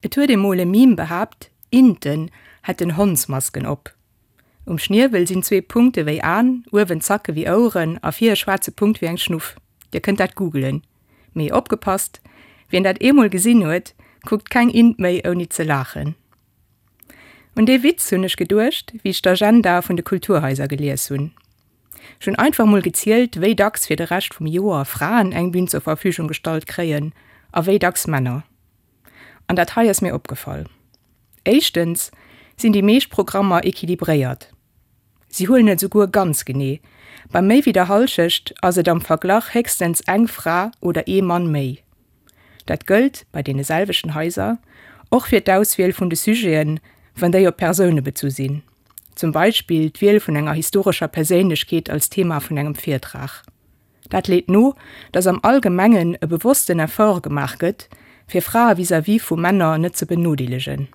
Et huet emol e Meme behaapt, Inten hätten Hondsmasken op. Um Schniewel sinn zwee Punkte wéi Aen, uewen Zacke wéi Oueren a vir e schwaarze Punkt wéi eng Schnuff. Dir kënnt dat googelen. Mee opgepasst, wien dat eemol gesinn huet, kuckt keng Int méi ouni ze laachen. Un dee Witz hunn ech geduecht, wéi ech d'Agenda vun de Kulturhaiser gelies hunn. Ech hunn einfach mol gezielt, wéi dacks fir de Rescht vum Joer Fraen eng Bün zur Verfügung gestallt kréien a wéi dacks Männer. An dat hei ass mir opgefall, Éischtens sinn déi meescht Programmer equilibréiert. Si huelen et esouguer ganz genee, bei méi wéi der Hallschecht ass et am Verglach héchstens eng Fra oder ee Mann méi. Dat gëllt, bei deene selwechten Haiser, och fir d'Auswiel vun de Sujeten, wann déi op Persoune bezu sinn, zum Beispill d'Wiel vun enger historescher Perséinlechkeet als Thema vun engem Virtrag. Dat leet no, datt am Allgemengen e bewossten Effort gemaach gëtt, fir Frae vis-à-vis vu Männer net ze benodeelegen.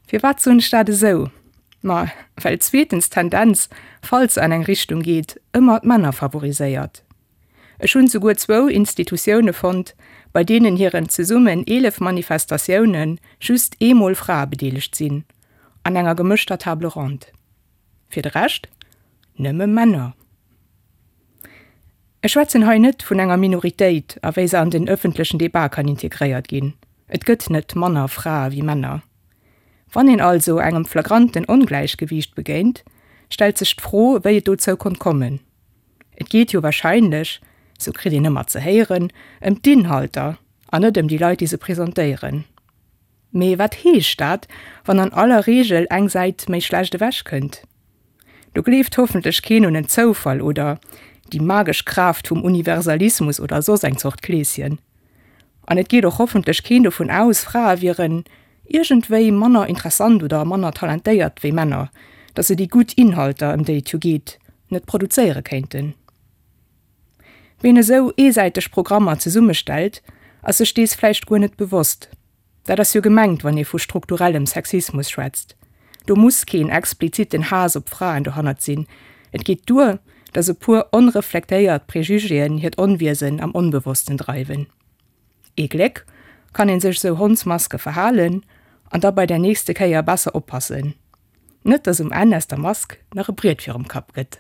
Firwat soen ech dat esou? Ma well zweetens d'Tendenz, falls se an eng Richtung geet, ëmmer d'Männer favoriséiert. Ech hunn souguer zwou Institutioune fonnt, bei deenen hiren zesummen 11 Manifestatioune just eemol Frae bedeelegt sinn, an enger gemëschter Table ronde. Fir de Rescht nëmme Männer. Ech schwätzen hei net vun enger Minoritéit a wéi se an den ëffentlechen Debat kann integréiert ginn. Et gëtt net manner Frae wéi Männer. Wann een also engem flagranten Ongläichgewiicht begéint, stellt sech d'Fro, wéi et dozou konnt kommen. Et geet jo wahrscheinlech, sou kritt een ëmmer ze héieren, ëm d'Inhalter an net ëm déi Leit, déi se presentéieren. Mee wat heescht dat, wann an aller Reegel eng Säit méi schlecht ewech kënnt? Do gleeft hoffentlech keen un en Zoufall oder déi magesch Kraaft vum Universalismus oder soss eng Zort Kleeschen. An et geet och hoffentlech keen dovun aus, Frae wieren iergendwéi manner interessant oder manner talentéiert wéi Männer, datt se déi gutt Inhalter, ëm déi et jo geet, net produzéiere kéinten. Ween esou eesäiteg Programmer zesummestellt, ass sech dees vläicht guer net bewosst. Dat ass jo gemengt, wann ee vu strukturellem Sexismus schwätzt. Do muss keen expliziten Haass op Fraen dohannert sinn, et geet duer, datt e puer onreflektéiert Prejugéen hiert Onwiesen am Onbewossten dreiwen. Ee Gléck kann ee sech esou Hondsmaske verhalen an da bei der nächste Kéier besser oppassen, net datt um Enn aus der Mask nach e Briet virum Kapp gëtt.